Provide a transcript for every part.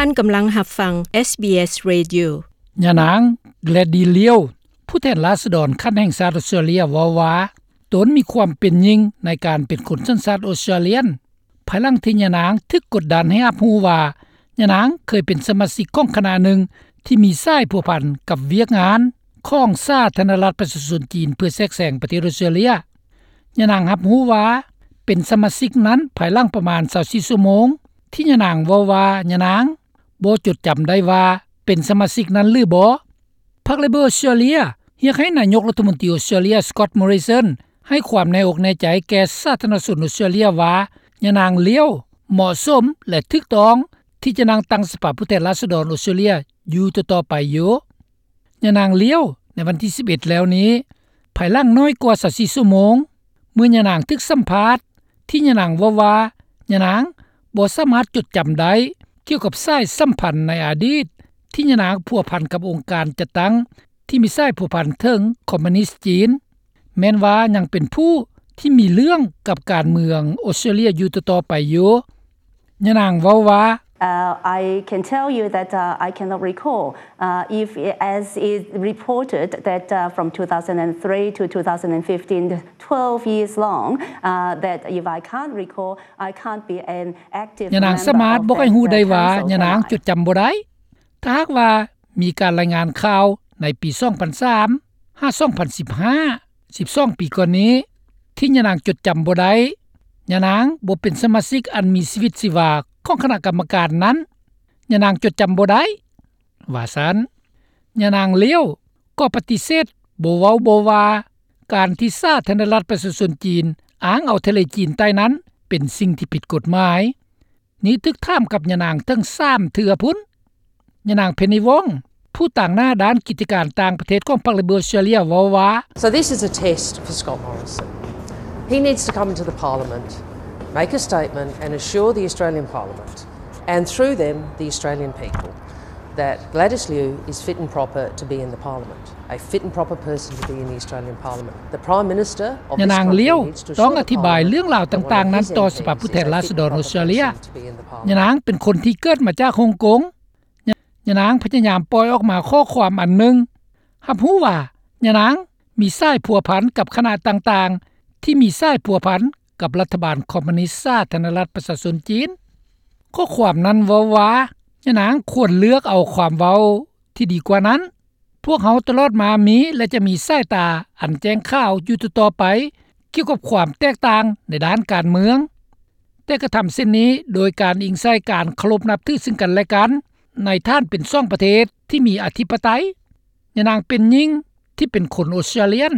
ທ່ານກຳລັງຮັບຟັງ SBS Radio. ຍານາງ Gladys Liao ຜູ້ແທນລາຊະດອນຂັ້ນແຫ່ງຊາດອອສເຕຣເລັຽ ເວົ້າວ່າ ຕົນມີຄວາມເປັນຍິ່ງໃນການເປັນຄົນສັນຊາດອອສເຕຣເລັຽ ພາຍຫຼັງທີ່ຍານາງຖືກກົດດັນໃຫ້ຮັບຮູ້ວ່າ ຍານາງເຄີຍເປັນສະມາຊິກຂອງຄະນະໜຶ່ງທີ່ມີສາຍພົວພັນກັບວຽກງານຂອງສາທາລະນະລັດປະຊາຊົນຈີນ ເພື່ອແຊກແຊງປະເທດອອສເຕຣເລັຽ. ຍານາງຮັບຮູ້ວ່າເປັນສະມາຊິກນັ້ນພາຍຫຼັງປະມານຊາວສີ່ຊົ່ວໂມງ ທີ່ຍານາງເວົ້າວ່າຍານາງບໍ່ຈົດຈຳໄດ້ວ່າເປັນສະມາຊິກນັ້ນຫຼືບໍ່. ພັກ Labor ອອສເຕຣເລັຽ ຮຽກໃຫ້ນາຍົກລັດຖະມົນຕີອອສເຕຣເລັຽ Scott Morrison ໃຫ້ຄວາມແນ່ອົກແນ່ໃຈແກ່ສາທາລະນະຊົນອອສເຕຣເລັຽວ່າ ຍານາງ Liao ເໝາະສົມ ແລະ ຖືກຕ້ອງທີ່ຈະນັ່ງຕັ້ງສະພາຜູ້ແທນລາຊະດອນອອສເຕຣເລັຽຢູ່ຕໍ່ໆໄປຢູ່. ຍານາງ Liao ໃນວັນທີສິບເອັດແລ້ວນີ້ ພາຍຫຼັງໜ້ອຍກວ່າຊາວສີ່ຊົ່ວໂມງ ເມື່ອຍານາງຖືກສຳພາດ ທີ່ຍານາງເວົ້າວ່າ ຍານາງບໍ່ສາມາດຈົດຈຳໄດ້ກ່ຽວກັບສາຍສຳພັນໃນອະດີດ ທີ່ຍານາງພົວພັນກັບອົງການຈັດຕັ້ງທີ່ມີສາຍພົວພັນເຖິງຄອມມູນິດຈີນ ແມ່ນວ່າຍັງເປັນຜູ້ທີ່ມີເລື່ອງກັບການເມືອງອອສເຕຣເລັຽຢູ່ຕໍ່ໆໄປຢູ່. ຍານາງເວົ້າວ່າ Uh, I can tell you that, uh, I cannot recall, uh, if, as is reported, that, uh, from two thousand three to two thousand fifteen, twelve years long, uh, that if I can't recall, I can't be an active member of that, uh, council. ຍານາງສາມາດບອກໃຫ້ຮູ້ໄດ້ວ່າ ຍານາງຈົດຈຳບໍ່ໄດ້. ຖ້າຫາກວ່າມີການລາຍງານຂ່າວໃນປີສອງພັນສາມຫາສອງພັນສິບຫ້າ ສິບສອງປີກ່ອນນີ້ ທີ່ຍານາງຈົດຈຳບໍ່ໄດ້, ຍານາງບໍ່ເປັນສະມາຊິກອັນມີຊີວິດຊີວາຂອງຄະນະກຳມະການນັ້ນ, ຍານາງຈົດຈຳບໍ່ໄດ້ ວ່າຊັ້ນ. ຍານາງ Liao ກໍປະຕິເສດບໍ່ເວົ້າບໍ່ວ່າ ການທີ່ສາທາລະນະລັດປະຊາຊົນຈີນອ້າງເອົາທະເລຈີນໃຕ້ນັ້ນເປັນສິ່ງທີ່ຜິດກົດໝາຍ. ນີ້ຖືກຖາມກັບຍານາງເຖິງສາມເທື່ອພຸ້ນ. ຍານາງ Penny Wong ຜູ້ຕາງໜ້າດ້ານກິດຈະການຕ່າງປະເທດຂອງພັກ Labor ເວົ້າວ່າ So this is a test for Scott Morrison. He needs to come to the Parliament, make a statement and assure the Australian Parliament and through them the Australian people that Gladys Liu is fit and proper to be in the Parliament. A fit and proper person to be in the Australian Parliament. The Prime Minister of this country needs to assure the Parliament that one of his M Ps is fit and proper person to be in the Parliament. ຍານາງ Liao ຕ້ອງອະທິບາຍເລື່ອງລາວຕ່າງໆນັ້ນຕໍ່ສະພາຜູ້ແທນລາຊະດອນອອສເຕຣເລັຽ. ຍານາງເປັນຄົນທີ່ເກີດມາຈາກຮົງກົງ. ຍານາງພະຍາຍາມປ່ອຍອອກມາຂໍ້ຄວາມອັນໜຶ່ງ ຮັບຮູ້ວ່າຍານາງມີສາຍພົວພັນກັບຄະນະຕ່າງໆ ທີ່ມີສາຍພົວພັນກັບລັດຖະບານຄອມມູນິດສາທາລະນະລັດປະຊາຊົນຈີນ. ຂໍ້ຄວາມນັ້ນເວົ້າວ່າ ຍານາງຄວນເລືອກເອົາຄວາມເວົ້າທີ່ດີກວ່ານັ້ນ. ພວກເຮົາຕະຫຼອດມາມີ ແລະ ຈະມີສາຍຕາອັນແຈ້ງຂາວຢູ່ຕໍ່ໆໄປ ກ່ຽວກັບຄວາມແຕກຕ່າງໃນດ້ານການເມືອງ, ແຕ່ກະທຳເຊັ່ນນີ້ໂດຍການອີງໃສ່ການເຄົາລົບນັບຖືຊຶ່ງກັນແລະກັນ ໃນຖານເປັນສອງປະເທດທີ່ມີອະທິປະໄຕ. ຍານາງເປັນຍິງທີ່ເປັນຄົນອອສເຕຣເລັຽ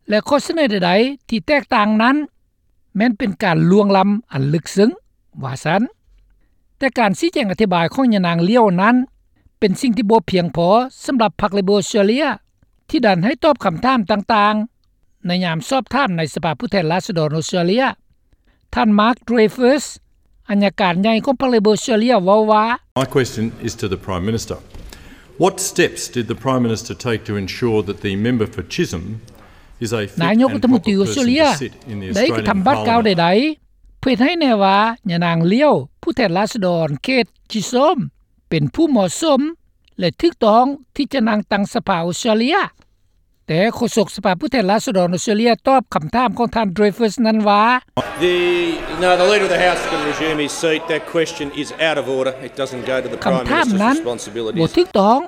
ແລະ ຂໍ້ສະເໜີໃດໆທີ່ແຕກຕ່າງນັ້ນ ແມ່ນເປັນການລ່ວງລ້ຳອັນເລິກເຊິ່ງ ວ່າຊັ້ນ. ແຕ່ການຊີ້ແຈງອະທິບາຍຂອງຍານາງ Liao ນັ້ນ ເປັນສິ່ງທີ່ບໍ່ພຽງພໍສຳລັບພັກ Labor ທີ່ດັນໃຫ້ຕອບຄຳຖາມຕ່າງໆ ໃນຍາມສອບຖາມໃນສະພາຜູ້ແທນລາຊະດອນອອສເຕຣເລັຽ. ທ່ານ Mark Dreyfus ອັຍການໃຫຍ່ຂອງພັກ Labor ເວົ້າວ່າ My question is to the Prime Minister. What steps did the Prime Minister take to ensure that the member for Chisholm is a fit and proper person to sit in the Australian Parliament? ນາຍົກລັດຖະມົນຕີອອສເຕຣເລັຽໄດ້ກະທຳບາດກ້າວໃດໆ ເພື່ອເຮັດໃຫ້ແນ່ວ່າຍານາງ Liao ຜູ້ແທນລາຊະດອນເຂດ Chisholm ເປັນຜູ້ເໝາະສົມ ແລະ ຖືກຕ້ອງທີ່ຈະນັ່ງຕັ້ງສະພາອອສເຕຣເລັຽ? ແຕ່ໂຄສົກສະພາຜູ້ແທນລາຊະດອນອອສເຕຣເລັຽຕອບຄຳຖາມຂອງທ່ານ Dreyfus ນັ້ນວ່າ The, no, the Leader of the House can resume his seat. That question is out of order. It doesn't go to the Prime Minister's responsibilities. ຄຳຖາມນັ້ນບໍ່ຖືກຕ້ອງ,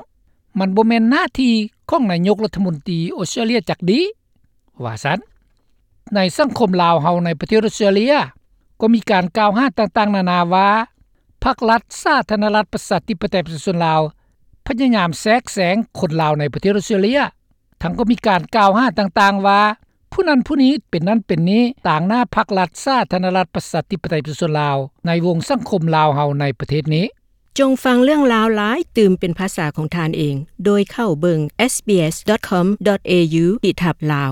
ມັນບໍ່ແມ່ນໜ້າທີ່ຂອງນາຍົກລັດຖະມົນຕີອອສເຕຣເລັຽຈັກດີ້ ວ່າຊັ້ນ. ໃນສັງຄົມລາວເຮົາໃນປະເທດອອສເຕຣເລັຽ ກໍມີການກ່າວຫາຕ່າງໆນານາວ່າ ພັກລັດສາທາລະນະລັດປະຊາທິປະໄຕປະຊາຊົນລາວ ພະຍາຍາມແຊກແຊງຄົນລາວໃນປະເທດອອສເຕຣເລັຽ. ທັງກໍມີການກ່າວຫາຕ່າງໆວ່າ ຜູ້ນັ້ນຜູ້ນີ້ເປັນນັ້ນເປັນນີ້ ຕາງໜ້າພັກລັດສາທາລະນະລັດປະຊາທິປະໄຕປະຊາຊົນລາວ ໃນວົງສັງຄົມລາວເຮົາໃນປະເທດນີ້. ຈົ່ງຟັງເລື່ອງລາວຫຼາຍຕື່ມເປັນພາສາຂອງທ່ານເອງ ໂດຍເຂົ້າເບິ່ງ SBS dot com dot au ທີ່ທັບລາວ.